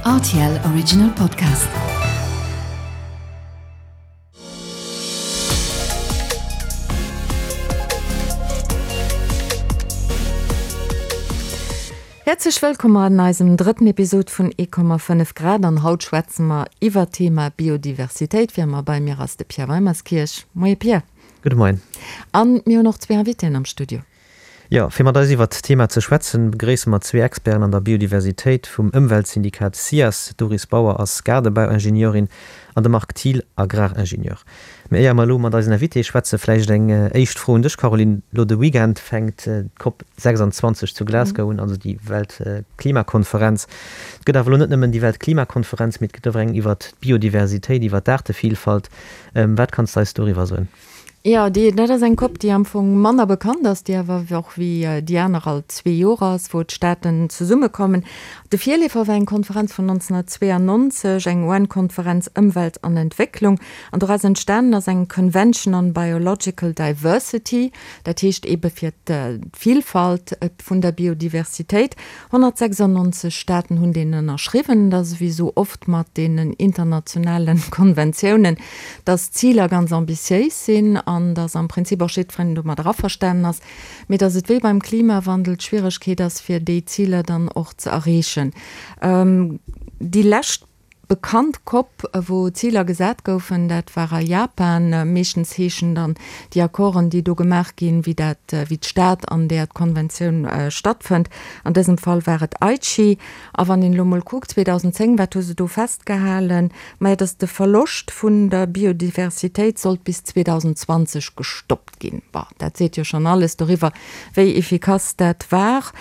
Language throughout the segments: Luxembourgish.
Rtl Original Podcast. Häerzlech wëllkomm an eisem drëtten Episod vun 1,5 Grad an haut schwätze mer iwwer d'Thema Biodiversitéit. Wéi ëmmer bei mir ass de Pierre Weimerskirch. Moie Pierre. Gudde Moien. An mir hunn och zwee Invitéen am Studio. Jo, fir mat eis iwwert d'Thema ze schwätzen, begréisse mer zwee Experten an der Biodiversitéit vum Ëmweltsyndikat SIAS. D'Doris Bauer ass Gaardebauingenieurin an de Marc Thiel Agraringenieur. Mee éier mer elo mat eisen Invitéë schwätzen, vläicht eng éischt Fro un dech, Caroline. Elo de Weekend fänkt d'COP 26 zu Glasgow un, also déi Weltklimakonferenz. Et gëtt awer elo net nëmmen déi Weltklimakonferenz, mee et gëtt och eng iwwert d'Biodiversitéit, iwwert d'Aartevillfalt. Wat kanns de eis doriwwer soen? Jo, déi, dat ass eng Cop, déi am Fong manner bekannt ass, déi awer och wéi déi aner all zwee Joer ass, wou d'Staaten zesummekommen. De Virleefer war eng Konferenz vun 1992, eng UN-Konferenz Ëmwelt an Entwécklung. An doraus entstanen ass eng Convention on Biological Diversity, dat heescht eebe fir d'Vilfalt vun der Biodiversitéit. 196 Staaten hunn deen ënnerschriwwen. Et ass ewéi esou oft mat deenen internationale Konventiounen, dass d'Ziler ganz ambitiéis sinn an dass am Prinzip och jiddwereen domadder averstanen ass, mee dass et wéi beim Klimawandel d'Schwieregkeet ass, fir déi Ziler dann och ze erreechen. Déi lescht Bekannt Cop, wou Ziler gesat goufen, dat war a Japan. Meeschtens heeschen dann déi Accorden, déi do gemaach ginn, wéi dat, wéi d'Stad, an där d'Konventioun stattfënnt. An dësem Fall war et Aichi. A wann een elo mol kuckt, 2010, wat hu se do festgehalen? Maja, datt de Verloscht vun der Biodiversitéit sollt bis 2020 gestoppt ginn. Bon, dat seet jo schonn alles doriwwer, wéi efficace dat war.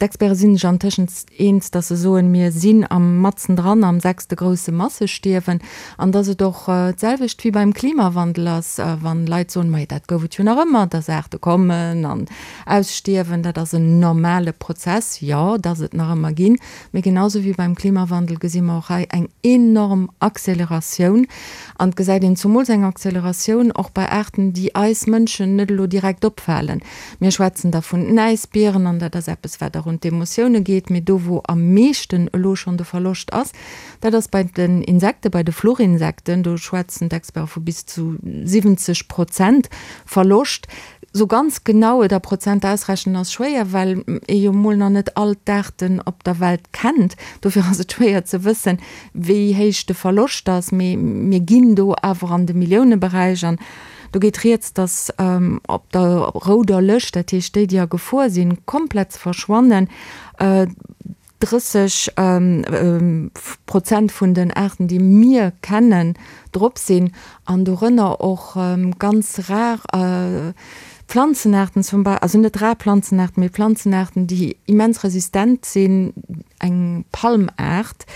D'Experte sinn sech antëschent eens, datt se soen, mir sinn am matzen dran am sechste grousse Massestierwen an datt et och d'selwecht wéi beim Klimawandel ass, wann Leit soen, majo dat gouf et jo nach ëmmer, datt Aarte kommen an ausstierwen, dat ass en normale Prozess. Jo, datt et nach ëmmer ginn, mee genau sou wéi beim Klimawandel gesi mer och hei eng enorm Acceleratioun an et gesäit een zumools eng Acceleratioun och bei Aarten, déi eis Mënschen net elo direkt opfalen. Mir schwätzen da vun den Äisbieren, an dat ass eppes, wat och un d'Emotioune geet. Mee do, wou am meeschten elo schonn de Verloscht ass, dat ass bei den Insekten, bei de Fluchinsekten. Do schwätzen d'Experte vu bis zu 70 Prozent Verloscht. Sou ganz genau et a Prozent ausrechnen ass schwéier, well ee jo mol nach net all d'Aarten op der Welt kennt. Dofir ass et schwéier ze wëssen, wéi héich de Verloscht ass. Mee mir ginn do awer an de Milliouneberäich. An Do geet rieds, datt op der rouder Lëscht, dat heescht déi, déi a Gefor sinn, komplett ze verschwannen, 30 Prozent vun den Aarten, déi mir kennen, drop sinn an dorënner och ganz rar Planzenaarten zum Beispill, also net rar Planzenaarten, mee Planzenaarten, déi immens resistent sinn, eng Palmaart,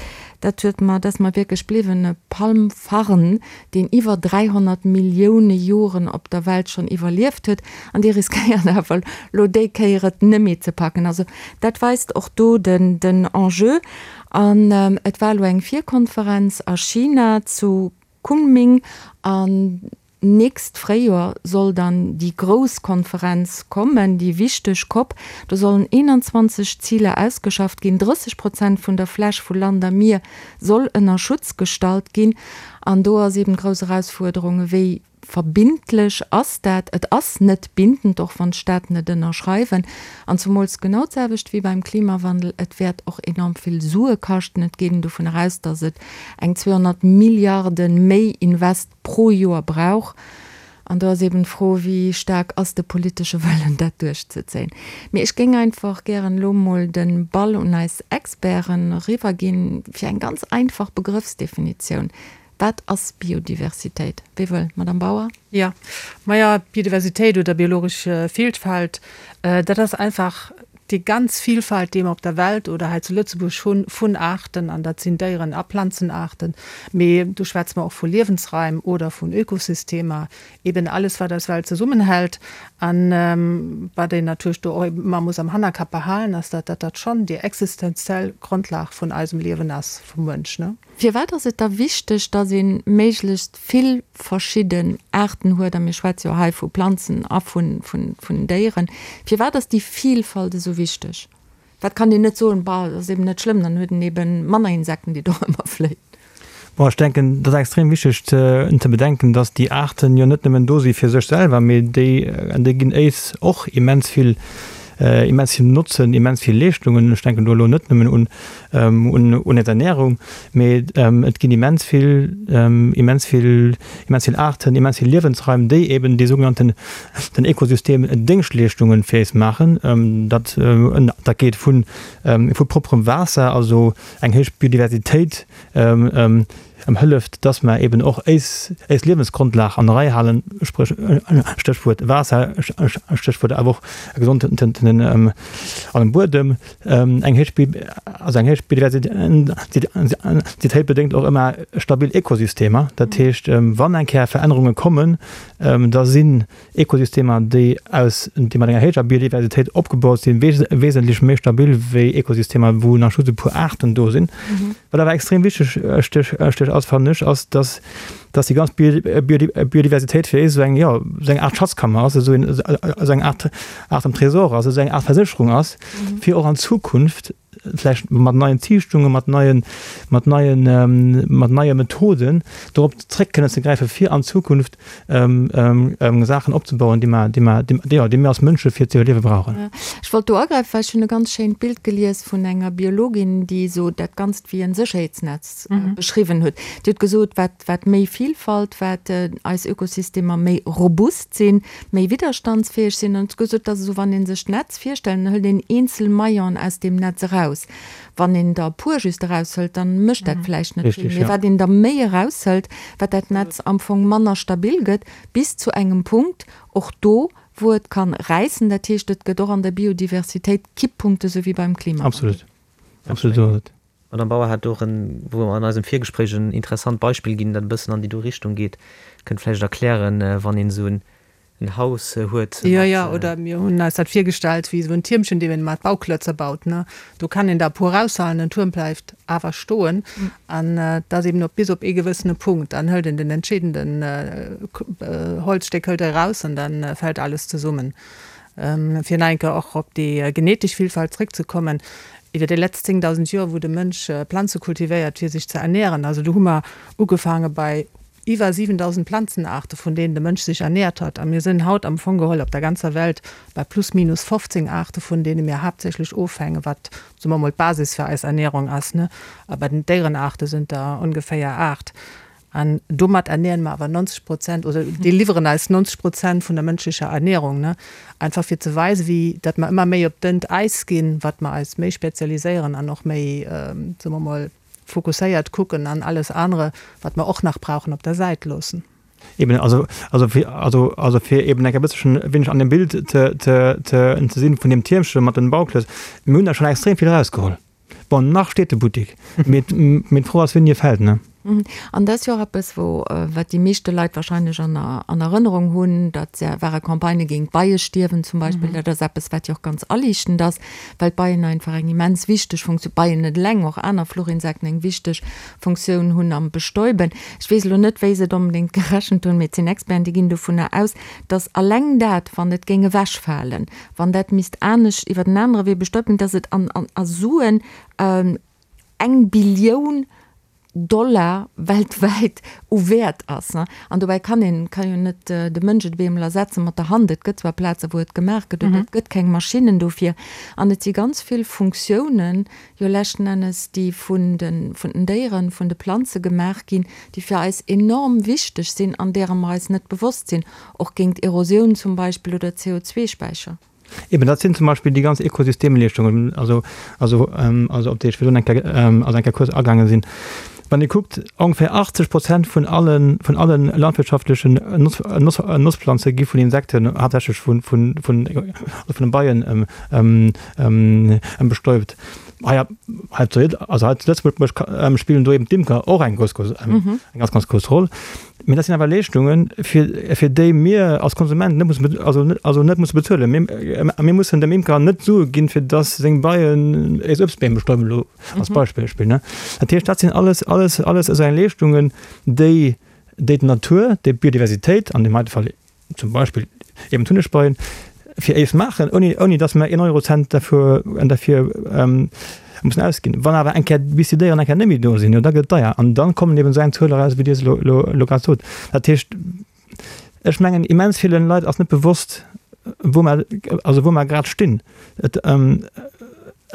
dat huet mer, dat ass mer wierklech bliwwen, e Palmfarn, deen iwwer 300 Millioune Joren op der Welt schonn iwwerlieft huet, an dee riskéiert awer elo déi Kéier et net méi ze packen. Also dat weist och do den Enjeu. An et war elo eng Virkonferenz a China zu Kunming an Nächst Fréijoer soll dann déi grouss Konferenz kommen, déi wichteg Cop. Do sollen 21 Ziler ausgeschafft ginn. 30 Prozent vun der Fläch vu Land a Mier soll ënner Schutz gestallt ginn. An do ass eben d'grouss Erausfuerderung, wéi verbindlech ass dat? Et ass net bindend, och wann d'Staaten et ënnerschreiwen. An zumools genau d'selwecht wéi beim Klimawandel, et wäert och enorm vill Sue kaschten. Et geet een dovun eraus, datt et eng 200 Milliarde méi Invest pro Joer brauch. An do ass eben d'Fro, wéi staark ass de politesche Wëllen, dat duerchzezéien. Mee ech géing einfach gären elo mol de Ball un eis Experten eriwwerginn, fir eng ganz einfach Begrëffsdefinitioun. Wat ass Biodiversitéit? Wie wëll? Madamm Bauer? Jo, maja, Biodiversitéit oder biologesch Vielfalt, dat ass einfach Déi ganz Vielfalt, déi mer op der Welt oder hei zu Lëtzebuerg hunn, vun Aarten, an dat sinn Déieren a Planzenaarten, mee do schwätze mer och vu Liewensraim oder vun Ökosystemer, eben alles, wat eis Welt zesummenhält. A wat een natierlech do och ëmmer muss am Hannerkapp behalen, ass, datt dat schonn déi existenziell Grondlag vun eisem Liewen ass, vum Mënsch. Firwat ass et da wichteg, datt ee méiglechst vill verschidden Aarten huet, a mir schwätze jo hei vu Planzen a vun Déieren, firwat ass déi Vilfalt esou wichteg? Wat kann een net soen, bah, dat ass eben net schlëmm, dann huet en eben manner Insekten, déi dorëmmer fléien. Bon, ech denken, et ass extrem wichteg ze bedenken, dass déi Aarten jo net nëmmen do si fir sech selwer, mee déi, déi ginn éis och immens vill, immens vill Notzen, immens vill Leeschtungen. Ech denken do elo net nëmmen un, un, un eis Ernährung, mee et ginn immens vill, immens vill, immens vill Aarten, immens vill Liewensraim, déi eben déi sougenannten, den Ökosystem Déngschtleeschtungen fir éis maachen. Dat, dat geet vu, vu propperem Waasser, also eng héich Biodiversitéit, hëlleft, dass mer eben och éis, éis Liewensgrondlag an der Rei halen, spréch, Stéchwuert Waasser, Stéchwuert awer och e gesondenen Buedem. Eng héich, also eng héich Biodiversitéit bedéngt och ëmmer stabil Ökosystemer. Dat heescht, wann eng Kéier Verännerunge kommen, da sinn Ekosystemer, déi aus, déi mat enger héijer Biodiversitéit opgebaut sinn, wesentlech méi stabil wéi Ekosystemer, wou nach just e puer Aarten do sinn. Wat awer extrem wichteg stech ass, fannen ech, ass, dass, dass déi ganz Biodiversitéit fir eis esou eng, jo, esou eng Aart Schatzkammer ass, esou en, esou eng Aart, Aart Tresor ass, esou eng Aart Versécherung ass, fir och an Zukunft vläicht mat neien Ziichtungen, mat neien, mat neien, mat neie Methoden dorop zréck kënnen ze gräifen, fir an Zukunft Saachen opzebauen, déi mer, déi mer, déi, jo, déi mir als Mënsche fir ze iwwerliewe brauchen. Ech wollt do agräifen, well ech hunn e ganz schéint Bild gelies vun enger Biologin, déi esou dat Ganzt wéi en Sécherheetsnetz beschriwwen huet. Déi huet gesot, wat, wat méi Vilfalt, wat eis Ökosystemer méi robust sinn, méi widderstandsfäeg sinn. An huet gesot, et ass esou, wann ee sech d'Netz virstellt, dann hëlt een eenzel Maillonen aus deem Netz eraus. Wann een der e puer just eraushëlt, dann mécht dat vläicht net vill. Mee wat een der méi eraushëlt, wat dat Netz am Fong manner stabil gëtt, bis zu engem Punkt, och do, wou et kann räissen. Dat heescht, et gëtt och an der Biodiversitéit Kipppunkte, sou wéi beim Klimawandel. Absolut. Absolut, esou ass et. D'Madame Bauer hat och en, wou mer an eisem Virgespréich en interessant Beispill ginn, dat e bëssen an déi do Richtung geet. Kënnt vläicht erklären, wann een esou en Haus huet mat. Jo, jo, oder mir hunn eis dat virgestallt wéi esou en Tiermchen, deen een mat Bauklötze baut, ne. Do kann een der e puer eraushalen, den Tuerm bleift awer stoen. An et ass eben op bis op ee gewëssene Punkt, dann hëlt een den entscheedenden Holzstéck hëlt e eraus an da fält alles zesummen. Fir nach eng Kéier och op déi genetesch Villfalt zréckzekommen, Iwwer déi letzt 10.000 Joer, wou de Mënsch Planze kultivéiert, fir sech ze ernären, also do hu mer ugefaange bei iwwer 7.000 Planzenaarte vun deenen de Mënsch sech ernäert hat, a mir sinn haut am Fong geholl op der ganzer Welt bei plus minus 15 Aarte vun deene mir haaptsächlech ofhängen, wat, soe mer mol, d'Basis fir eis Ernährung ass, ne. A bei den Déierenaarte sinn der ongeféier 8. An domat ernähren mer awer 90 Prozent, oder déi liwweren eis 90 Prozent vun der mënschlecher Ernährung, ne? Einfach fir ze weisen, wéi datt mer ëmmer méi op dënnt Äis ginn, wat mer eis méi spezialiséieren an och méi, soe mer mol, fokusséiert kucken an alles anere, wat mer och nach brauchen, op der Säit loossen. Eben, also, also fir, also, also fir eben eng e bësselchen e wéineg an dem Bild ze, ze, ze, ze sinn vun deem Tiermche mat den Bauklötz, mir hunn der schonn extrem vill erausgeholl. Bon, nach steet de Buttik, mee mee d'Fro ass, wéini e fält, ne? An dat ass jo och eppes, wou, wat déi meeschte Leit wahrscheinlech an an Erënnerung hunn, dat ware Campagnë géint d'Beiestierwen zum Beispill. Dat ass eppes, wat jo och ganz aliichtend ass, well d'Beien einfach eng immens wichteg Funktioun, d'Beien net eleng, och aner Fluchinsekten, eng wichteg Funktioun hunn am Bestäuben. Ech weess elo net, wéi se et onbedéngt gerechent hunn, mee et sinn Experten, déi ginn dovunner aus, datt alleng dat, wann et géing ewechfalen, wann dat misst anescht iwwer en anere Wee bestäubt ginn, dass et an, an, a Suen eng Billioun Dollar weltwäit u Wäert ass. An dobäi kann een, kann jo net de Mënsch et op eemol ersetze mat der Hand. Et gëtt zwar Plaze wou et gemaach gëtt, oder et gëtt keng Maschinnen dofir. An et si ganz vill Funktiounen jo leschten Ennes, déi vun de, vun den Déieren, vun de Planze gemaach ginn, déi fir eis enorm wichteg sinn an deerer mer eis net bewosst sinn. Och géint Erosioun zum Beispill oder CO2-Späicher. Eben, dat sinn zum Beispill déi ganz Ökosystemleeschtungen, also, also, also op déi ech virdrun eng Kéier, also eng Kéier kuerz agaange sinn. Wann ee kuckt, ongeféier 80 Prozent vun allen, vun alle landwirtschaftlechen Noss, Noss, Notzplanze gi vun Insekten, haaptsächlech vun, vun, vun, also vun de Beien bestäubt. Hei, hei zu, also hei zu Lëtzebuerg spillen do eben d'Imker och eng grouss, grouss, eng ganz, ganz grouss Roll. Mee dat sinn awer Leeschtungen, fir, fir déi mir als Konsument net mussen, also net, also net musse bezuelen. Mir, mir mussen dem Imker net Sue ginn, fir dass seng Beien eis Uebstbeem bestäuben, elo als Beispill, ne. Dat heescht, dat sinn alles, alles, alles esou eng Leeschtungen, déi, déi d'Natur, déi d'Biodiversitéit, an deem heite Fall zum Beispill eben d'Hunnegbeien. fir éis maachen, ouni, ouni datt mer een Eurocent derfür, derfir mussen ausginn. Wann awer eng Kéier, bis déi Déieren eng Kéier net méi do sinn, jo da gëtt et deier. An dann kommen eben esou eng Zuel eraus, wéi Dir se elo, elo, elo grad sot. Dat heescht, ech mengen, immens ville Leit ass net bewosst, wou mer, also wou mer grad stinn. Et,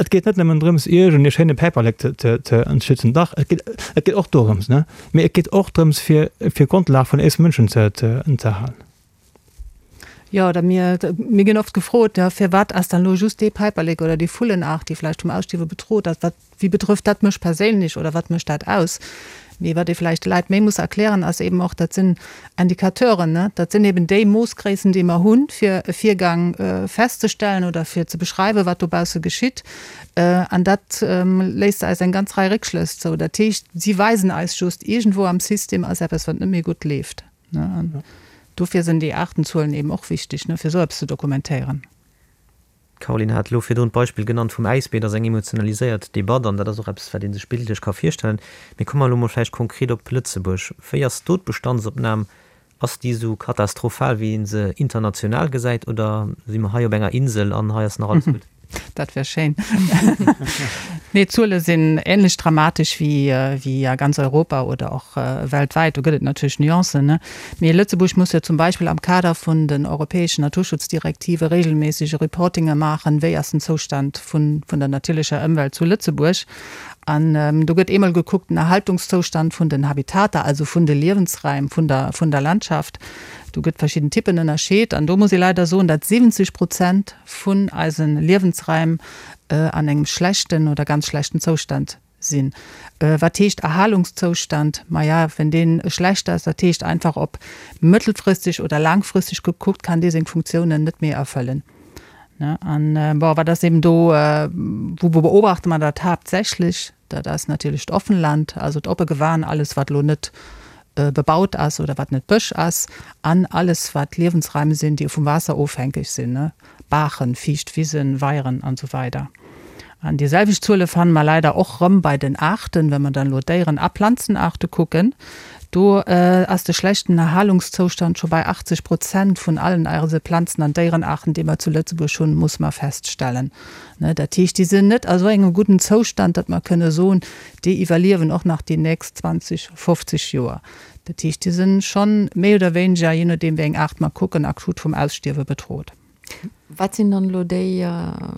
et geet net nëmmen drëms, iergend ee schéine Päiperlek ze, ze, ze schützen. Dach, et geet, et geet och dorëms, ne? Mee et geet och drëms, fir, fir d'Grondlag vun éis Mënschen ze, ze, ze erhalen. Jo, oder mir, mir ginn oft gefrot, ja, firwat ass dann elo just dee Päiperlek oder déi Vullenaart, déi vläicht vum Ausstierwe bedrot ass, wat, wéi betrëfft dat mech perséinlech oder wat mécht dat aus? Mee wat ee vläicht de Leit méi muss erklären, ass eben och, dat sinn Indicateuren, ne? Dat sinn eben déi Moossgréissen, déi mer hunn, fir e Virgang festzestellen oder fir ze beschreiwen, wat dobausse geschitt. An dat léisst eis eng ganz Rei Réckschlëss zou. Dat heescht, si weisen eis just, iergendwou am System ass eppes, wat net méi gutt leeft. An dofir sinn déi Aartenzuelen eben och wichteg, fir esou eppes ze dokumentéieren. D'Caroline hat elo virdrun d'Beispill genannt vum Äisbier. Dat ass eng emotionaliséiert Debatt an dat ass och eppes, wat ee sech bildlech ka virstellen. Mee komme mer elo mol vläicht konkret op Lëtzebuerg. Wéi ass do d'Bestandsopnam? Ass déi esou katastrophal, wéi ee se international gesäit, oder si mer hei op enger Insel an hei ass nach alles gutt? Dat wär schéin. Nee, d'Zuele sinn änlech dramatesch wéi a ganz Europa oder och weltwäit. Do gëtt et natierlech Nuancen, ne? Mee Lëtzebuerg muss jo zum Beispill am Kader vun den europäeschen Naturschutzdirektive regelméisseg e Reportinge maachen, wéi ass den Zoustand vun der natierlecher Ëmwelt zu Lëtzebuerg. An do gëtt eemol gekuckt den Erhaltungszoustand vun den Habitater, also vun de Liewensraim vun der vun der Landschaft. Do gëtt verschidden Typen ënnerscheet. An do muss ee leider soen, datt 70 Prozent vun eise Liewensraim an engem schlechten oder ganz schlechten Zoustand sinn. Wat heescht Erhalungszoustand? Maja, wenn deen schlecht ass, dat heescht einfach op mëttelfristeg oder laangfristeg gekuckt, kann dee seng Funktiounen net méi erfëllen. An bon, wat ass eben do, wou beobachte mer dat haaptsächlech? Dat ass natierlech d'Offenland, also d'oppe Gewan, alles wat elo net bebaut ass oder wat net Bësch ass, an alles wat Liewensraim sinn, déi vum Waasser ofhänkeg sinn, Baachen, fiicht Wisen, Weieren an esou weider. An déi selwecht Zuele fanne mer leider och rëm bei den Aarten, wa mer dann elo Déieren a Planzenaarte kucken. Do ass de schlechten Erhalungszoustand scho bei 80 Prozent vun allen eise Planzen an Déierenaarten, déi mer zu Lëtzebuerg hunn, muss mer feststellen. Dat heescht, déi sinn net a sou engem gudden Zoustand, datt mer kënne soen, déi iwwerliewen och nach déi nächst 20, 50 Joer. Dat heescht, déi sinn schonn méi oder wéineger, jee nodeem wéi eng Aart mer kucken, akut vum Ausstierwe bedrot. Wat sinn dann elo déi,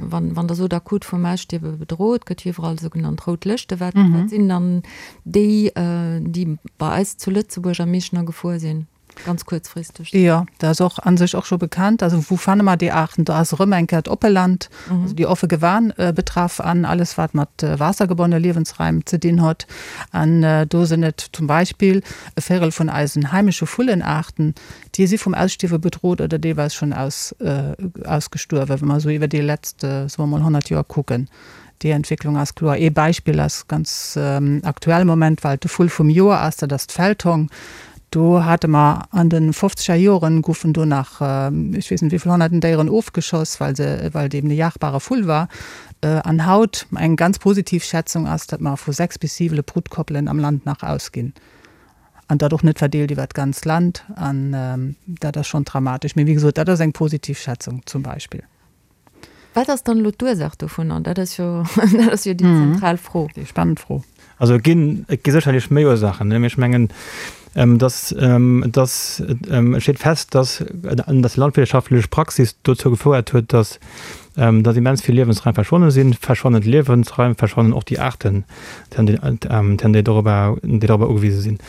wann, wann Der sot akut vum Ausstierwe bedrot, gëtt jo iwwerall sougenannt rout Lëschte, wat, wat sinn dann déi, déi bei eis zu Lëtzebuerg am meeschten a Gefor sinn? Ganz kuerzfristeg. Jo, dat ass och a sech och scho bekannt. Also wou fanne mer déi Aarten? Do ass erëm eng Kéier d'Oppeland, also déi offe Gewan betraff an alles wat mat waassergebonnene Liewensraim ze dinn huet. An do sinn et zum Beispill e Véirel vun eisen heimesche Vullenaarten, déi si vum Ausstierwe bedrot oder deelweis schonn ausgestuerwen, wa mer esou iwwer déi letzt, soe mer mol, 100 Joer kucken. Déi Entwécklung ass kloer. Ee Beispill ass ganz aktuell am Moment, well et de Vull vum Joer ass, dat ass d'Feldhong. Do hate mer an de fofzeger Joren, goufen do nach ech weess net wéi vill honnerten Déieren ofgeschoss, well se, well et eben e jagbare Vull war. An haut, eng ganz positiv Schätzung ass, datt mer vu 6 bis 7 Brutkoppelen am Land nach ausginn. An dat och net verdeelt iwwert d'ganzt Land. An dat ass schonn dramatesch. Mee wéi gesot, dat ass eng positiv Schätzung zum Beispill. Wat ass dann elo d'Ursaach dovunner? Dat ass jo, dat ass jo déi zentral Fro. Déi spannend Fro. Also et ginn, et gi sécherlech méi Ursaachen, mee ech mengen, dass, dass, et steet fest, dass, dass déi landwirtschaftlech Praxis dozou gefouert huet, dass, dass immens vill Liewensraim verschwonne sinn. Verschwannen d'Liewensraim, verschwannen och déi Aarten, déi dorobber, déi dorobber ugewise sinn.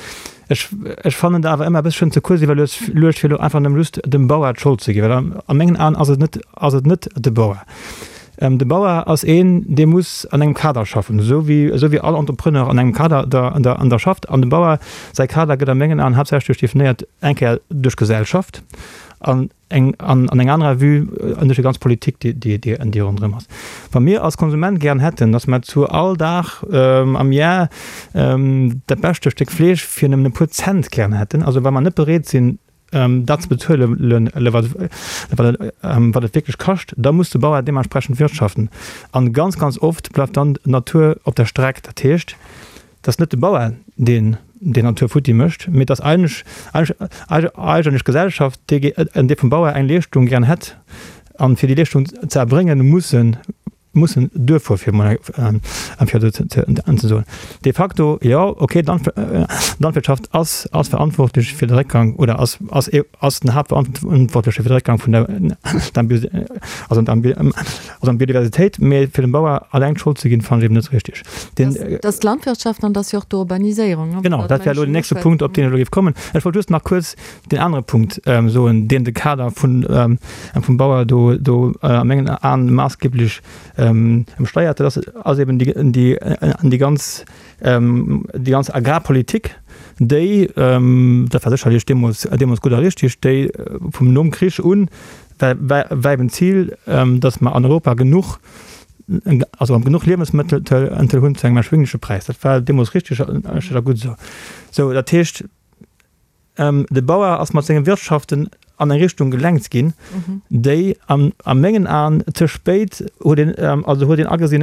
Ech, ech fannen et awer ëmmer e bësschen ze kuerz iwwerluecht, fir elo einfach nëmme just dem Bauer d'Schold ze ginn, well an, a mengen Aen ass et net, ass et net de Bauer. De Bauer ass een, dee muss an engem Kader schaffen, esou wéi, esou wéi all Entrepreneur an engem Kader da, da, an da schafft. An dem Bauer säi Kader gëtt a mengen Aen haaptsächlech definéiert eng Kéier duerch d'Gesellschaft an, eng an an eng anerer Vue an duerch déi ganz Politik, déi déi déi déi ronderëm ass. Wa mir als Konsument gären hätten, datt mer zu all Dag am Jar dat beschte Stéck Fleesch fir nëmmen e puer Cent gären hätten, also wa mer net bereet sinn dat ze bezuelen, wat wat wat et wierklech kascht, da muss de Bauer deementsprechend wirtschaften. An ganz ganz oft bleift dann d'Natur op der Streck. Dat heescht, Et ass net de Bauer, deen déi Natur futti mécht, mee et ass eigentlech d'Gesellschaft, déi vum Bauer eng Leeschtung gären hätt. An fir déi Leeschtung ze erbréngen, mussen mussen duerfuer, fir emol fir esou ze soen. De facto, jo, okay, d'Landwirtschaft ass ass verantwortlech fir de Réckgang oder ass ass ass den Haaptverantwortleche fir de Réckgang vun der also also an Biodiversitéit, mee fir dem Bauer alleng d'Schold ze ginn, fannen ech eben net richtig. Den, dat ass d'Landwirtschaft an dat ass jo och d'Urbaniséierung. Genau, dat wär elo den nächste Punkt, op deen ech elo géif kommen. Ech wollt just nach kuerz deen anere Punkt soen, deen de Kader vun, vum Bauer do, do a mengen Aen maassgeblech ëmsteiert. Dat ass, ass eben déi, déi, déi ganz, déi ganz Agrarpolitik, déi, dat war sécherlech deemools, deemools gutt a richtig, déi vum nom Krich un war, war, war eben d'Zil, datt mer an Europa genuch, also genuch Liewensmëttel hunn zu engem erschwingleche Präis. Dat war deemools richtig a gutt esou. Sou, dat heescht, De Bauer ass mat senge Wirtschaften an eng Richtung gelenkt ginn, déi a mengen Aen ze spéit huet een, also huet een agesinn,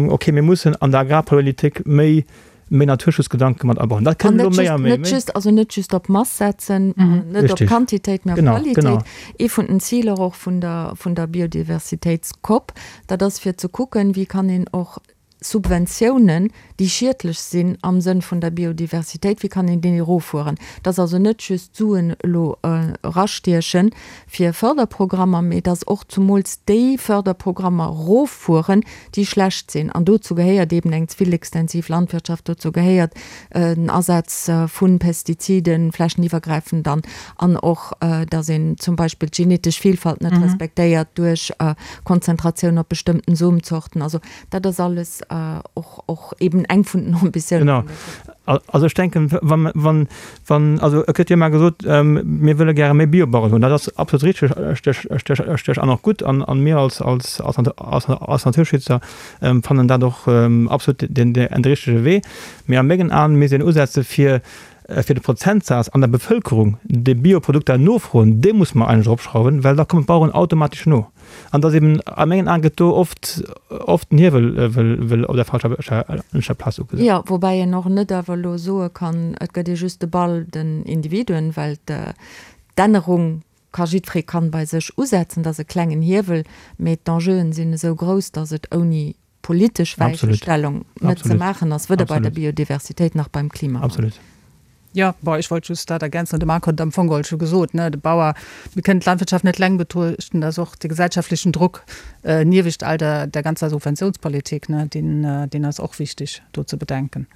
okay, mir mussen an der Agrarpolitik méi méi Naturschutzgedanke mat abauen. Dat kënnt elo méi a méi. Net just, also net just op Mass setzen, net op Quantitéit, mä op Qualitéit. Ee vun den Ziler och vun der vun der Biodiversitéits-COP, dat ass fir ze kucken, wéi kann een och Subventiounen, déi schiedlech sinn am Sënn vun der Biodiversitéit, wéi kann een déi eroffueren? Et ass also net just d'Suen elo erastieche fir Förderprogrammer, mee et ass och zumools déi Förderprogrammer eroffueren, déi schlecht sinn. An dozou gehéiert eeben eng ze vill extensiv Landwirtschaft, dozou gehéiert den Asaz vu Pestiziden, flächeniwwergräifend dann, an och, datt een zum Beispill d'genetesch Vielfalt net respektéiert duerch Konzentratioun op bestëmmten Somzorten. Also Dat ass alles och, och eben eng vun den Ambitiounen. Genau. Also ech denken, wann, wann, wann, also et gëtt jo ëmmer gesot, mir wëlle gäre méi Biobaueren hunn. Dat ass absolut richteg, richteg an och gutt. An, an mir als, als, als, als, als Naturschützer fannen dat och absolut den, den richtege Wee. Mee a mengen Aen misst een usetze fir, fir de Prozentsaz an der Bevëlkerung, déi Bioprodukter nofroen, dee muss mer eigentlech eropschrauwen, well da kommen d'Baueren automatesch no. An dass eben, a mengen Aen gëtt do oft, oft den Hiewel wëll op der falscher Plaz ugesat. Jo, woubäi een och net awer elo soe kann, et gëtt ee just de Ball den Individuen, well d'Ännerung ka jiddweree kann bei sech usetzen, dat ass e klengen Hiewel, mee d'Enjeuen sinn esou grouss, dass et ouni politesch Weichenstellung net ze maachen ass, weder bei der Biodiversitéit nach beim Klimawandel. Absolut. Jo, bon, ech wollt just dat ergänzen, de Marc huet et am Fong geholl scho gesot, ne, de Bauer, mir kënnen d'Landwirtschaft net eleng betruechten, dat ass och de gesellschaftlechen Druck niewescht all der, der ganzer Subventionspolitik, ne, deen, deen ass och wichtig do ze bedenken.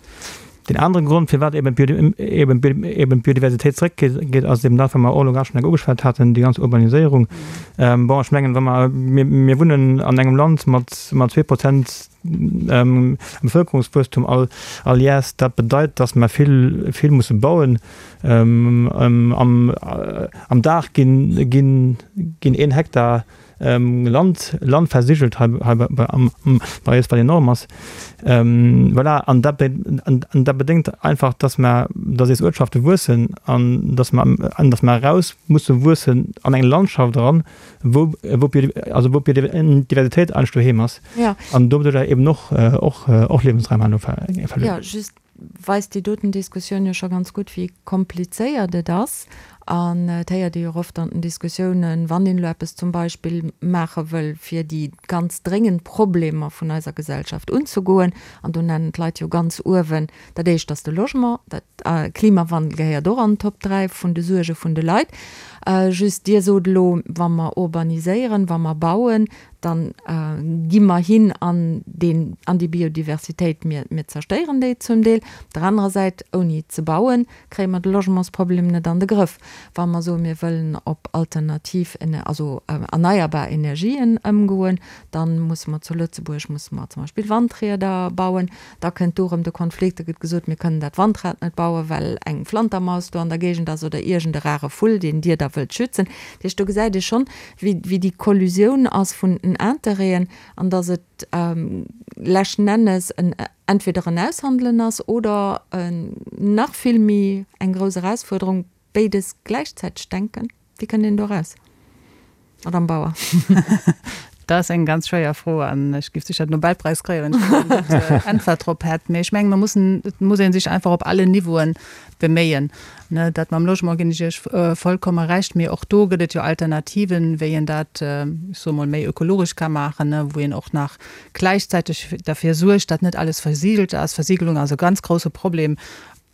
Deen anere Grond, firwat eben d'Biodiversitéit zeréckgeet, ass eben dat, wat mer och elo grad schonn enk ugeschwat haten, déi ganz Urbaniséierung. Bon, ech mengen, wa mer, mir wunnen an engem Land mat 2 Prozent Bevëlkerungswuesstum all all Jäers. Dat bedeit, datt mer vill, vill musse bauen. Am Dag ginn, ginn, ginn een Hektar Land, Land versigelt hei, hei bei, bei, am, bei eis, wat enorm ass. Voilà, an dat, an dat bedéngt einfach, dass mer, dass eis Uertschafte wuessen an dass mer, an dass mer eraus musse wuessen an eng Landschaft eran, wou, wou d'Bio, also wou d'Biodiversitéit eigentlech doheem ass. Ja. An doduerjer eben och, och, och Liewensraim herno verluer. Ja, just weist déi doten Diskussioun jo scho ganz gutt, wéi komplizéiert et ass. An et héiert ee jo och oft an den Diskussiounen, wann een elo eppes zum Beispill maache wëll, fir déi ganz dréngend Problemer vun eiser Gesellschaft unzegoen, an do nennen d'Leit jo ganz uewen dat éischt ass de Logement, dat Klimawandel gehéiert och an d'Top 3 vun de Suerge vun de Leit. Just Dir sot elo, wa mer urbaniséieren, wa mer bauen, dann gi mer hin an deen, an déi Biodiversitéit, mir, mir zerstéieren déi zum Deel. Op der anerer Säit, ouni ze bauen, kréie mer de Logementsproblem net an de Grëff. Wa mer soen, mir wëllen op alternativ, also erneierbar Energien ëmgoen, da musse mer zu Lëtzebuerg musse mer zum Beispill Wandrieder bauen. Da kënnt do erëm de Konflikt, da gëtt gesot, mir kënnen dat Wandrad net bauen, well eng Flantermaus do an der Géigend ass oder iergend e rare Vull, deen Dir da wëllt schützen. Dat heescht, do gesäit ee schonn, wéi, wéi déi Kollusioun ass vun den Interêten an dass et leschten Ennes en entweder en Aushandelen ass oder nach vill méi eng grouss Erausfuerderung, béides gläichzäiteg denken. Wéi kënnt een do eraus, Madame Bauer? Dat ass eng ganz schwéier Fro an ech géif sécher den Nobelpräis kréien, wann ech do eng gutt Äntwert drop hätt. Mee ech mengen, mer mussen, et muss ee sech einfach op allen Niveauen beméien. Ne, dat mam Logement ginn ech Iech vollkomme Recht, mee och do gëtt et jo Alternativen, wéi een dat, ech soe mol, méi ökologesch ka maachen, ne, wou een och nach gläichzäiteg derfir suergt, datt net alles versiegelt ass. Versiegelung ass e ganz grousse Problem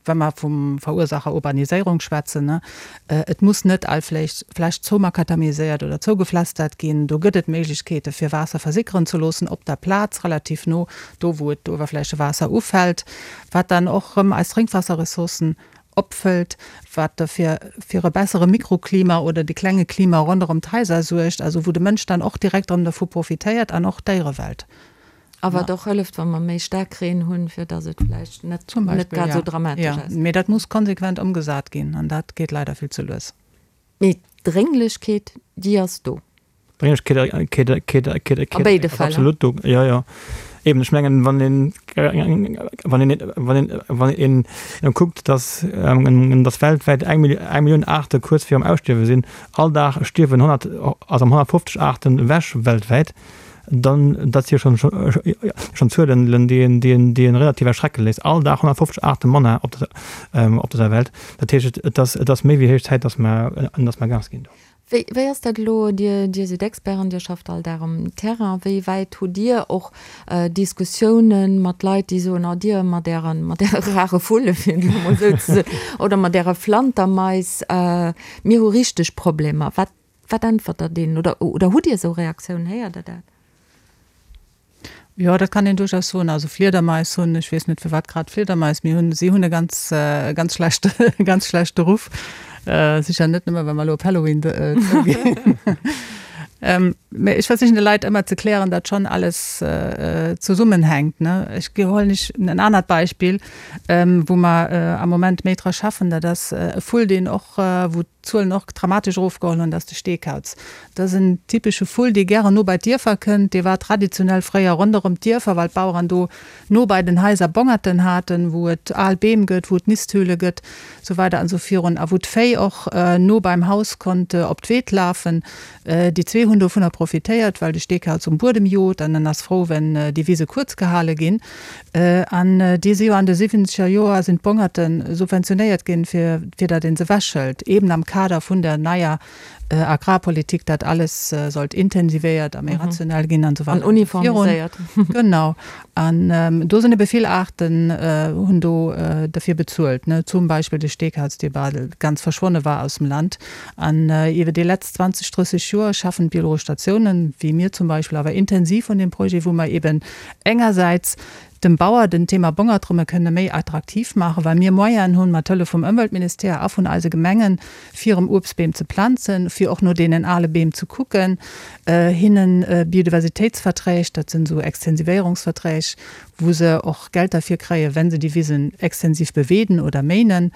wa mer vum Verursacher Urbaniséierung schwätzen, et muss net all Fläch zoumakadamiséiert oder zougepflastert ginn. Do gëtt et Méiglechkeete fir Waasser versickeren ze loossen op der Plaz, relativ no do wou et d'Uewerflächewaasser ufält, wat dann och erëm eis Drénkwaasserressourcen opfëllt, wat derfir fir e bessere Mikroklima oder de klenge Klima ronderëm d'Haiser suergt, also wou de Mënsch dann och direkt erëm dervu profitéiert an och d'Déierewelt. A wat och hëlleft, wa mer méi staark Reen hunn, fir datt et vläicht net net grad esou dramatesch ass. Mee dat muss konsequent ëmgesat ginn an dat geet leider vill ze lues. Mee d'Drénglechkeet, déi ass do. D'Drénglechkeet A béide ass Fäll. absolut do, jo, jo. Eben, ech mengen, wann een, wann een, wann een, wann een kuckt, datt, datt weltwäit eng Millioun Aarte kuerz virum Ausstierwe sinn, all Dag stierwen 100, also 150 Aarten ewech weltwäit, Dann, dat si jo schonn, schonn Zuelen, déi een, déi een, déi een relativ erschrecke léisst. All Dag 150 Aarte manner op der, op dëser Welt. Dat heescht, et ass, et ass méi wéi héich Zäit, dass mer, dass mer Gas ginn do. Wéi, wéi ass dat elo? Dir, Dir sidd Experten, Dir schafft all Dag um Terrain. Wéi wäit hutt Dir och Diskussiounen mat Leit, déi soen, oh Dir mat Ären, mat Äre rare Vulle, fir et elo emol esou ze soen, oder mat Äre Flantermais, mir hu richteg Problemer. Wat, Wat äntwert Der deenen? Oder, oder hutt Dir esou Reaktiounen? Héiert Der dat? Jo, dat kann een duerchaus soen. Also Fliedermais hunn, ech weess net firwat grad Fliedermais, mee hunn, si hunn e ganz, e ganz schlechte, e ganz schlechte Ruff. Sécher net nëmme well mer elo op Halloween zouginn. Mee ech versichen de Leit ëmmer ze klären, datt schonn alles zesummenhänkt, ne. Ech huelen lech en anert Beispill, wou mer am Moment méi dra schaffen, dat ass e Vull, deen och, wou d'Zuelen och dramatesch erofgeholl hunn, dat ass de Steekauz. Dat ass en typesche Vull, dee gären no bei d'Dierfer kënnt. Dee war traditionell fréier ronderëm d'Dierfer, well d'Baueren do no bei den Haiser Bongerten haten, wou et al Beem gëtt, wou et Nisthöhle gëtt, sou weider an sou virun, a wou d'Véi och no beim Haus konnt op d'Weed lafen. Déi zwee hunn dovunner profitéiert, well de Steekauz um Buedem jot an en ass frou, wenn déi Wise kuerz gehale ginn. An déi si jo an de siwwenzeger Joer sinn d'Bongerte subventionéiert ginn, fir fir datt ee se ewechhëlt, eeben am Kader vun der neier Agrarpolitik, datt alles sollt intensivéiert a méi rationell ginn an esou weider. An uniformiséiert. Genau. An do sinn ebe vill Aarten hunn do derfir bezuelt, ne, zum Beispill de Steekauz, dee bal ganz verschwonne war aus dem Land. An iwwer déi letzt 20, 30 Joer schaffen d'biologesch Statiounen, wéi mir zum Beispill, awer intensiv un deem Projet, wou mer eben engersäits dem Bauer den Thema Bongert rëm kënne méi attraktiv maachen, well mir Moyenen hunn, mat Hëllef vum Ëmweltministère a vun eise Gemengen, fir erëm Uebstbeem ze planzen, fir och no deenen ale Beem ze kucken, hinnen Biodiversitéitsverträg, dat sinn esou Extensivéierungsverträg, wou se och Geld derfir kréien, wenn se déi Wisen extensiv beweeden oder méinen.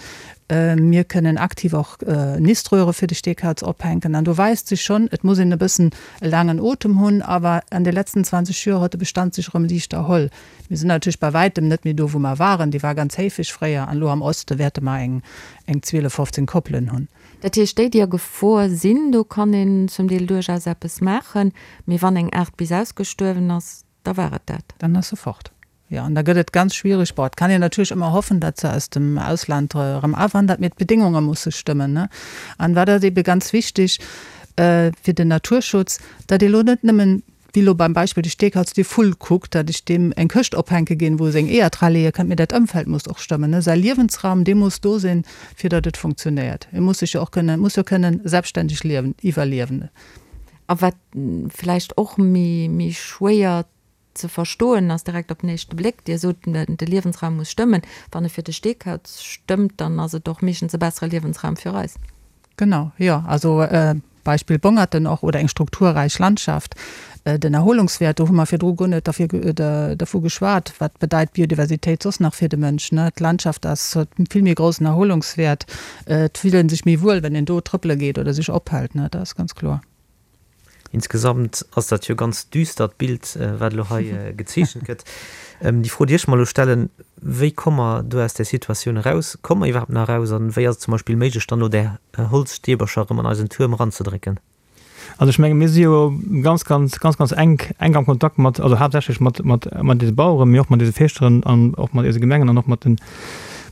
Mir kënnen aktiv och Niströhre fir de Steekauz ophänken. An do weist sech schonn, et muss een e bëssen e laangen Otem hunn, awer an de letzten 20 Joer huet de Bestand sech erëm liicht erholl. Mir sinn natierlech bei wäitem net méi do, wou mer waren. Dee war ganz héifeg fréier an elo am Oste wäerte mer eng eng 12, 15 Koppelen hunn. Dat heescht, déi, déi a Gefor sinn, do kann een zum Deel duerchaus eppes maachen, mee wann eng Aart bis ausgestuerwen ass, da war et dat. Dann ass se fort. Jo, an da gëtt et ganz schwierig. Bon, et kann een natierlech ëmmer hoffen, datt se aus dem Ausland erëm awandert, mee d'Bedéngunge musse stëmmen, ne? An wat ass ebe ganz wichtig fir den Naturschutz, datt ee lo net nëmmen, wéi lo beim Beispill de Steekauz, dee Vull kuckt, datt ech deem eng Këscht ophänke ginn, wou e seng Eeër dra leeë kënnt, mee dat Ëmfeld muss och stëmmen, ne? Säi Liewensraum, dee muss do sinn, fir datt et funktionéiert. E muss sech jo och kënnen, muss jo kënnen selbstständeg liewen, iwwerliewen. A wat vläicht och méi, méi schwéier ze verstoen ass direkt op den éischte Bléck. Dir sot, de Liewensraum muss stëmmen. Wann e fir de Steekauz stëmmt, dann ass et och meeschtens e bessere Liewensraum fir eis. Genau, jo. Also Beispill Bongerten och oder eng strukturräich Landschaft. Den Erholungswäert, do hu mer virdru guer net derfir dervu geschwat, wat bedeit Biodiversitéit soss nach fir de Mënsch, ne? D'Landschaft ass, huet vill méi groussen Erholungswäert. Et fillt ee sech méi wuel, wenn een do trëppele geet oder sech ophält, ne? Dat ass ganz kloer. Insgesamt ass dat jo ganz düstert Bild, wat elo hei gezeechent gëtt. Déi Fro, déi ech mer elo stellen, Wéi komme mer do aus där Situatioun eraus? Komme mer iwwerhaapt nach eraus? An wéi ass et zum Beispill méiglech, dann elo där Holzstäbercher erëm an eisen Tuerm eranzedrécken? Also ech menge mir si jo ganz, ganz, ganz, ganz enk, enk am Kontakt mat, also haaptsächlech mat, mat, mat eise Baueren, mee och mat eise Fierschteren an och mat eise Gemengen an och mat den,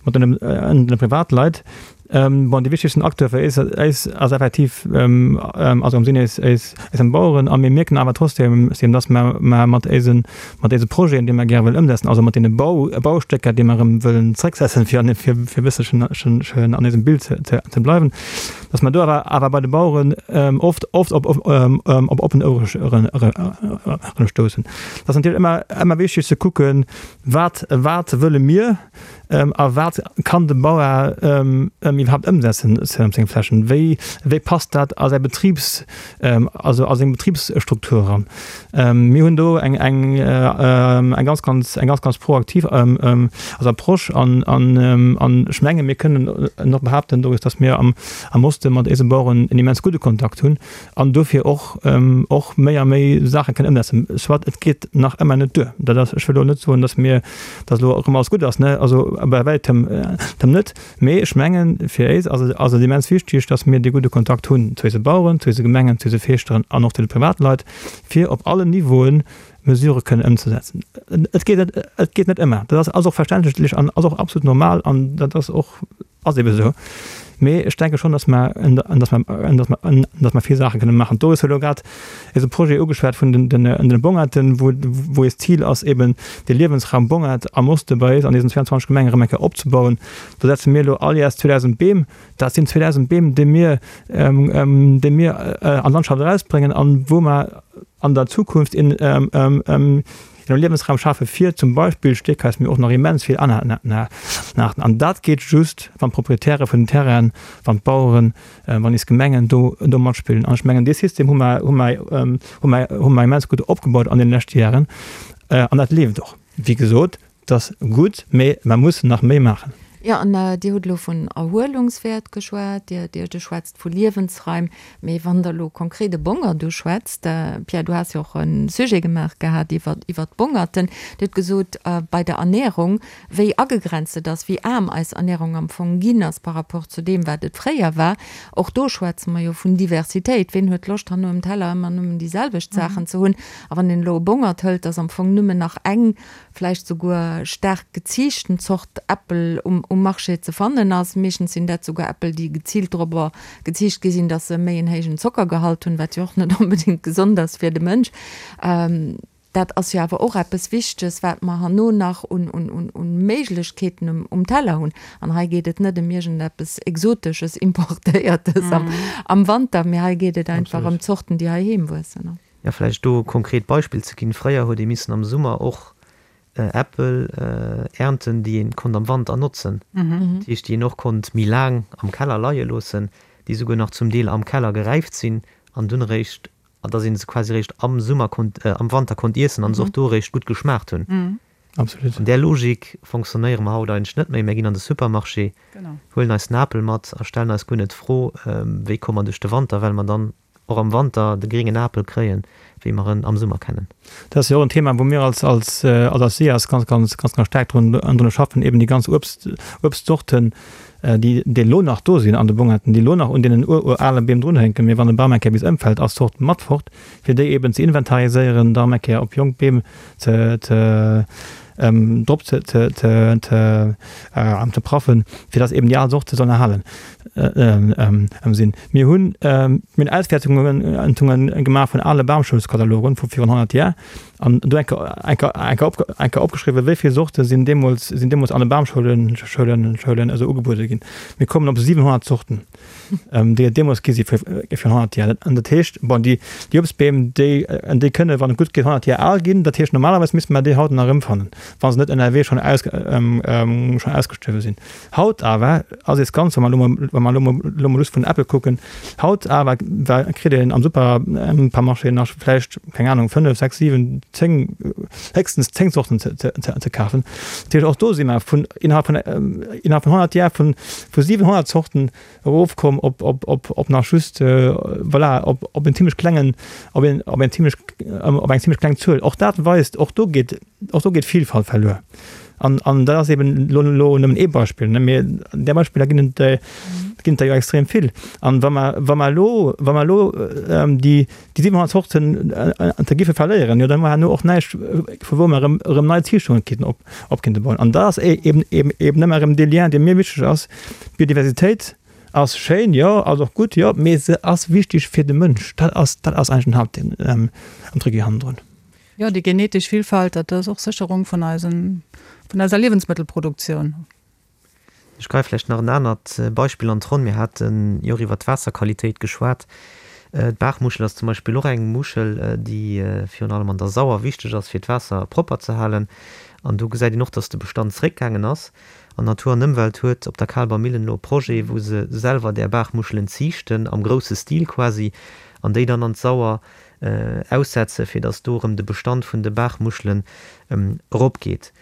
mat den, den Privatleit. Bon, dee wichtegsten Acteur fir eis, eis ass effektiv, also am Sinn eis, eis, eis Baueren. A mir mierken awer trotzdem, dass mer, mer mat eisen, mat eise Projeten, déi mer gäre wëllen ëmsetzen, also mat deene Bau, Baustécker, déi mer erëm wëllen zrécksetzen, fir an, fir, fir e bësselchen schen an eisem Bild ze, ze, ze bleiwen, dass mer do awer, awer bei de Baueren oft, oft op, op oppen Ouere, ere stoussen. Et ass natierlech ëmmer, ëmmer wichteg ze kucken, Wat, wat wëlle mir? A wat kann de Bauer iwwerhaapt ëmsetzen op senge Flächen? Wéi, wéi passt dat a säi Betribs, also a seng Betribsstruktur eran? Mir hunn do eng, eng, eng ganz, ganz, eng ganz, ganz proaktiv also Approche an, an, an ech menge mir kënnen och behaapten, Doris, datt mir am, am Oste mat eise Baueren en immens gudde Kontakt hunn an dofir och, och méi a méi Saache kënnen ëmsetzen. Soit, et geet nach ëmmer net duer. Dat ass, ech wëll elo net soen, datt mir, datt elo erëm alles gutt ass, ne, also bei wäitem net. Mee ech mengen, fir éis ass et, ass et immens wichtig, datt mir dee gudde Kontakt hunn zu eise Baueren, zu eise Gemengen, zu eise Feeschteren an och zu de Privatleit, fir op allen Niveauen Mesurë kënnen ëmzesetzen. Et geet net, et geet net ëmmer. Dat ass, ass och verständlech an ass och absolut normal an dat ass och, Ass ebe sou. Mee ech denke schonn, dass mer, dass mer, dass mer, dass mer vill Saache kënne maachen. D'Doris huet elo grad eise Projet ugeschwat vun den, den, den Bongerten, wou, wou eist Zil ass, eben de Liewensraum Bongert am Oste bei eis an deesen 22 Gemengen erëm eng Kéier opzebauen. Do setze mir elo all Jäers 2.000 Beem. Dat sinn 2.000 Beem, déi mir, déi mir an d'Landschaft erausbréngen an wou mer an der Zukunft een, Een Liewensraum schafe fir zum Beispill Steekais, mee och nach immens vill aner Aarten. An dat geet just, wann d'Proprietäre vun den Terrainen, wann d'Baueren, wann eis Gemengen do do matspillen. An ech mengen, dee System hu mer, hu mer, hu mer, hu mer immens gutt opgebaut an deene leschte Jaren. An dat leeft och. Wéi gesot, Et ass gutt, mee mer mussen nach méi maachen. Jo, an Dir hutt elo vun Erhuelungswäert geschwat, Dir, Dir, Dir schwätzt vu Liewensraim. Mee wann Der elo konkret e Bongert uschwätzt, Pierre, du has jo och e Sujet gemaach gehat iwwer, iwwer d'Bongerten. Dir hutt gesot, bei der Ernährung, wéi agegrenzt et ass, wéi aarm eis Ernährung am Fong ginn ass par rapport zu deem, wat et fréier war. Och do schwätze mer jo vun Diversitéit. Ween huet Loscht, herno um Teller ëmmer nëmmen déi selwecht Saachen ze hunn? A wann een elo e Bongert hëlt, ass am Fong nëmmen nach eng vläicht souguer staark geziichten Zort Äppel um um Marché ze fannen ass. Meeschtens sinn dat souguer Äppel, déi geziilt dorobber geziicht gi sinn, dass se méi en héijen Zockergehalt hunn, wat jo och net onbedéngt gesond ass fir de Mënsch. Dat ass jo awer och eppes Wichteges, wat mer herno nach un un un un Méiglechkeeten um um Teller hunn. An hei geet et net ëm iergendeppes Exotesches, Importéiertes am am Wanter, mee hei geet et einfach ëm Zorten, déi heiheem wuessen. Jo, vläicht do e konkret Beispill ze ginn, Fréier huet ee missen am Summer och Äppel ernten, déi een konnt am Wanter notzen, dat heescht, déi een och konnt méi laang am Keller leie loossen, déi souguer nach zum Deel am Keller geräift sinn an dunn eréischt, dass ee se quasi eréischt am Summer konnt, am Wanter konnt iessen an se och do eréischt gutt geschmaacht hunn. Absolut. An där Logik fonctionnéiere mer haut eigentlech net méi. Mir ginn an de Supermarché, huelen eis den Apel mat a stellen eis guer net d'Fro, wéi komme mer duerch de Wanter, well mer dann och am Wanter de gréngen Apel kréien, wéi mer en am Summer kennen. Dat ass jo och en Thema, wou mir als, als, als SIAS ganz, ganz, ganz, ganz staark drun, drun schaffen, eben déi ganz Uebst, Uebstzorten, déi, déi elo nach do sinn an de Bongerten, déi elo nach un deenen ururale Beem drunhänken, mee wann e Bam eng Kéier bis ëmfält, ass d'Zort mat fort, fir déi eben ze inventariséieren, da erëm eng Kéier op jonk Beem ze, ze, drop ze, ze, ze, ze, ze praffen, fir dass eben déi al Zorte sollen erhalen sinn. Mir hunn, mir hunn Auswäertungen gemaach vun ale Bamschoulskatalogen vu virun 100 Jar an do eng Kéier, eng Kéier, eng Kéier opge, eng Kéier opgeschriwwen, wéi vill Zorte sinn deemools, sinn deemools an de Bamschoulen, Schoulen, Schoulen esou ugebuede ginn. Mir kommen op 700 Zorten. Déi et deemools gi si fir 100 Jar. An dat heescht, bon, déi Uebstbeem, déi déi kënne wann et gutt geet 100 Jar al ginn. Dat heescht, normalerweis misste mer déi haut nach erëmfannen, wa se net ënnerwee schonn aus schonn ausgestuerwe sinn. Haut awer ass ees ganz, wa mer elo mol wa mer elo mol elo mol just vun Äppel kucken, haut awer kritt een am Supermarché nach vläicht, keng Anung, 5, 6, 7, 10, héchstens 10 Zorten ze, ze, ze, ze kafen. Dat heescht, och do si mer vun innerhalb vun, innerhalb vun 100 Jar vun, vu 700 Zorten erofkomm op, op, op, op nach just, voilà, op, op en zimmlech klengen, op een, op eng zimmlech, op eng zimmlech kleng Zuel. Och dat weist, och do geet, och do geet Vielfalt verluer. An, an dat ass eben elo, elo nëmmen ee Beispill, ne, mee där Beispiller ginn et, ginn et der jo extrem vill. An wa mer, wa mer elo, wa mer elo déi, déi 700 Zorten ze giffe verléieren, jo da hu mer herno och näischt, vu wou mer erëm, erëm nei Ziichtungen kéinten op, op kéinte bauen. An dat ass eben, eben, eben ëmmer erëm dee Lien, dee mir wichteg ass, D'Biodiversitéit ass schéin, jo, ass och gutt, jo, mee se ass wichteg fir de Mënsch. Dat ass, dat ass eigentlech den Haaptding am Tricki hannendrun. Jo, déi genetesch Villfalt, dat ass och Sécherung vun eisen, vun eiser Liewensmëttelproduktioun. Ech greife vläicht nach en anert Beispill an d'Ronn. Mir hate jo och iwwert d'Waasserqualitéit geschwat. D'Baachmuschel ass zum Beispill och eng Muschel, déi virun allem an der Sauer wichteg ass, fir d'Waasser propper ze halen. An do gesäit een och, dass de Bestand zréckgaangen ass. An Natur an Ëmwelt huet op der Kaalber Millen elo e Projet, wou se selwer där Baachmuschelen ziichten, am grousse Stil quasi, an déi dann an d'Sauer aussetzen, fir dass do erëm de Bestand vun de Baachmuschelen eropgeet.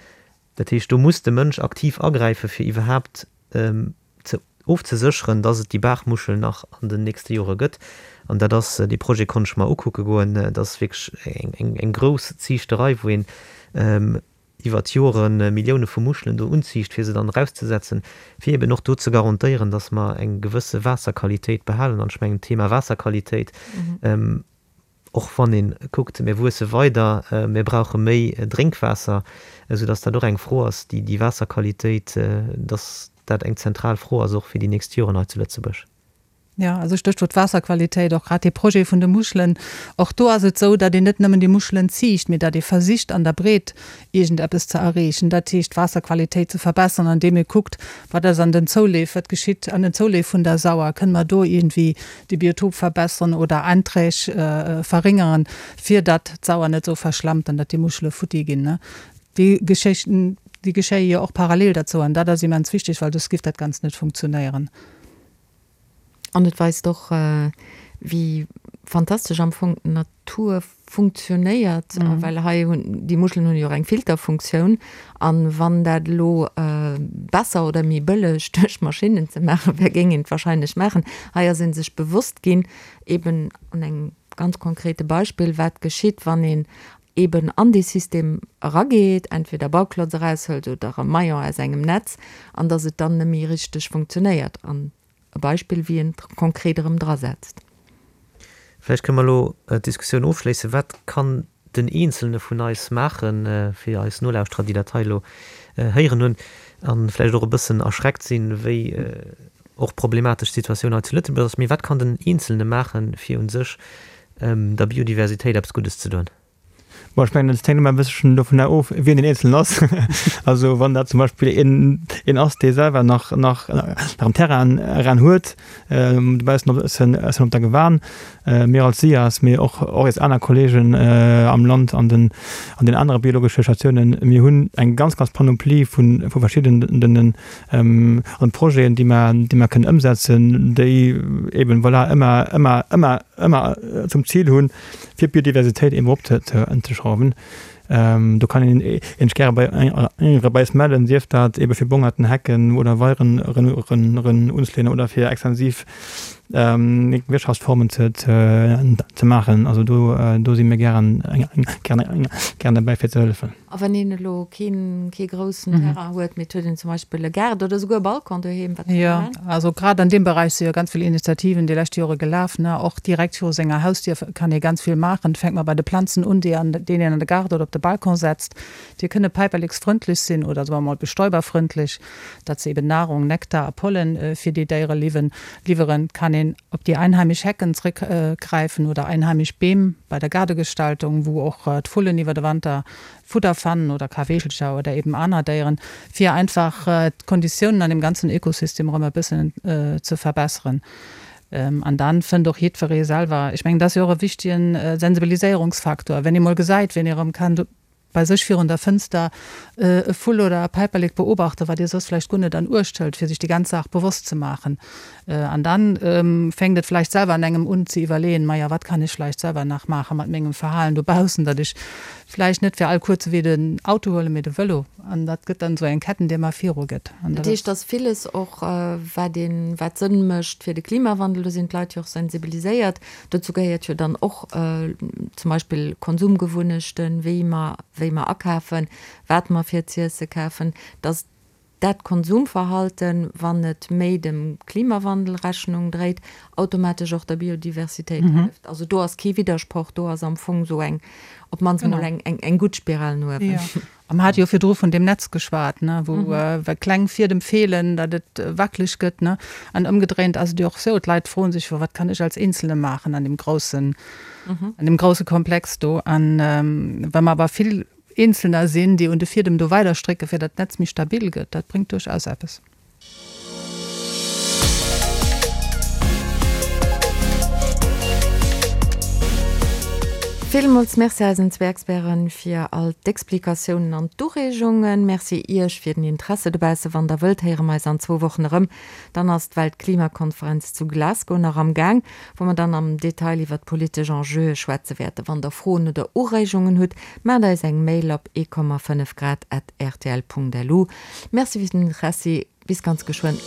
Dat heescht, do muss de Mënsch aktiv agräifen, fir iwwerhaapt ze ofzesécheren, dass et déi Baachmuschel nach an den nächste Jore gëtt. An dat ass, dee Projet konnt ech mer ukucke goen, dat ass wierklech eng grouss Ziichterei, wou een iwwer d'Jore Millioune vu Muschelen do unziicht, fir se dann erauszesetzen, fir eben och do ze garantéieren, dass mer eng gewësse Waasserqualitéit behalen. An ech mengen, d'Thema Waasserqualitéit, och wann ee kuckt, mir wuesse weider, mir brauche méi Drénkwaasser, esoudass dat och eng Fro ass, déi déi Waasserqualitéit, dass dat eng zentral Fro ass och fir déi nächst Joren hei zu Lëtzebuerg. Jo, also Stéchwuert Waasserqualitéit, och grad dee Projet vun de Muschelen. Och do ass et esou, datt een net nëmmen déi Muschelen ziicht, mee datt ee versicht an der Breet iergendeppes ze erreechen, dat heescht d'Waasserqualitéit ze verbessern, andeem ee kuckt, wat ass an den Zouleef, wat geschitt an den Zouleef vun der Sauer, kënne mer do iergendwéi de Biotop verbessern oder Einträg verringeren, fir datt d'Sauer net esou verschlammt an datt déi Muschele futti ginn. Déi Geschéchten, déi geschéie jo och parallel derzou an dat ass immens wichteg, well soss giff dat Ganzt net funktionéieren. An et weist och, wéi fantastesch am Fong d'Natur funktionéiert, well hei hunn déi Muschelen hunn jo och eng Filterfunktioun. An wann dat elo besser oder méi bëlleg duerch Maschinnen ze maache wär, géing een et wahrscheinlech maachen. Hei ass ee sech bewosst ginn, eben an engem ganz konkrete Beispill, wat geschitt, wann een eben an dee System erageet, entweder Bauklotz eraushëlt oder e Maillon aus engem Netz, an dass et dann net méi richteg funktionéiert. An e Beispill, wéi een et konkret erëm drasetzt. Vläicht kënne mer elo d'Diskussioun ofschléissen. Wat kann den Eenzelne vun eis maachen, fir eis Nolauschterer, déi dat hei elo héieren hunn a vläicht och e bëssen erschreckt sinn, wéi och problematesch d'Situatioun hei zu Lëtzebuerg ass, mee wat kann den Eenzelne maachen, fir u sech der Biodiversitéit eppes Guddes ze doen? Bon, ech mengen, et hänkt ëmmer e bësselchen dovunner of, wien deen Eenzelnen ass. Also wann dat zum Beispill een, een ass, dee selwer nach, nach, nach en Terrain eran huet, dobaussen op, essen, essen op der Gewan, mir als SIAS, mee och, och eis aner Kollegen am Land an den, an den anere biologesche Statiounen, mir hunn eng ganz, ganz Panoplie vu, vu verschiddenen an Projeten, déi mer, déi mer kënnen ëmsetzen, déi eben, voilà, ëmmer, ëmmer, ëmmer, ëmmer zum Zil hunn, fir d'Biodiversitéit eben erop ze, ze schrauwen. Do kann een een sech gäre bei bei eis mellen, sief dat ebe fir Bongerten, Hecken oder Weieren eren unzeleeën oder fir extensiv Wirtschaftsformen ze, ze, ze maachen. Also do, do si mir gären, gären, gären derbäi fir ze hëllefen. A wann een elo keen, kee groussen Terrain huet, mee et huet een zum Beispill e Gaart oder esouguer e Balcon doheem, wat kann ee Jo, maachen? also grad an deem Beräich si jo ganz vill Initiativen déi lescht Jore gelaf, ne. Och direkt viru senger Hausdier kann ee ganz vill maachen. Et fänkt mol bei de Planzen un, déi an, déi een an de Gaart oder op de Balcon setzt. Déi kënne päiperleksfrëndlech sinn oder soe mer mol bestäuberfrëndlech, datt se eben Nahrung, Nektar a Pollen fir déi Déiere liwwen, liwweren. Et kann een op déi einheimisch Hecken zréckgräifen oder einheimisch Beem bei der Gaardegestaltung, wou och d'Vullen iwwer de Wanter Fudder fannen oder Kaweechelcher oder eben aner Déieren, fir einfach d'Konditiounen an deem ganzen Ökosystem erëm e bëssen ze verbesseren. An dann fënnt och jiddweree selwer, ech mengen, dat ass jo och e wichtigen Sensibiliséierungsfaktor, wenn ee mol gesäit, wien ee erëm kann bei sech virun der Fënster e Vull oder e Päiperlek beobachten, wat ee soss vläicht guer net an Uecht hëlt, fir sech déi ganz Saach bewosst ze maachen. An dann fänkt et vläicht selwer an engem un ze iwwerleeën, Maja, wat kann ech vläicht selwer nach maache mat mengem Verhalen dobaussen, datt ech. Vläicht net fir all kuerze Wee den Auto huelen, mee de Vëlo. An dat gëtt dann esou eng Ketten, déi ëmmer viru gëtt. An dat heescht, dass villes och, wat een, wat Sënn mécht fir de Klimawandel, do sinn d'Leit jo och sensibiliséiert. Dozou gehéiert jo dann och zum Beispill Konsumgewunnechten, wéi mer, wéi mer akafen, wat mer fir z'iesse kafen, dass dat Konsumverhalten, wann et méi dem Klimawandel Rechnung dréit, automatesch och der Biodiversitéit hëlleft. Also do ass kee Widdersproch, do ass am Fong esou eng, op d'mannst emol eng, eng gutt Spiral no uewen. Jo. A mer hate jo virdru vun deem Netz geschwat, ne, wou wa kleng Fiedem feelen, datt et wackeleg gëtt, ne. An ëmgedréint ass et jo och esou, d'Leit froen sech jo, wat kann ech als Eenzelne maachen an deem groussen, an deem grousse Komplex do. An wa mer awer vill Eenzelner sinn, déi un de Fiedem do weider strécken, fir datt d'Netz méi stabil gëtt. Dat bréngt duerchaus eppes. Villmools Merci eisen zwee Experten fir all d'Explikatiounen an d'Ureegungen. Merci Iech fir den Interesse dobausse. Wann der wëllt, héiere mer eis an zwou Wochen erëm. Dann ass d'Weltklimakonferenz zu Glasgow nach am Gaang, wou mer dann am Detail iwwer d'politesch Enjeue schwätze wäerten. Wann der Froen oder Ureegungen hutt, maacht eis eng Mail op 1,5 grad at rtl.lu. Merci fir den Interessi, bis ganz geschwënn.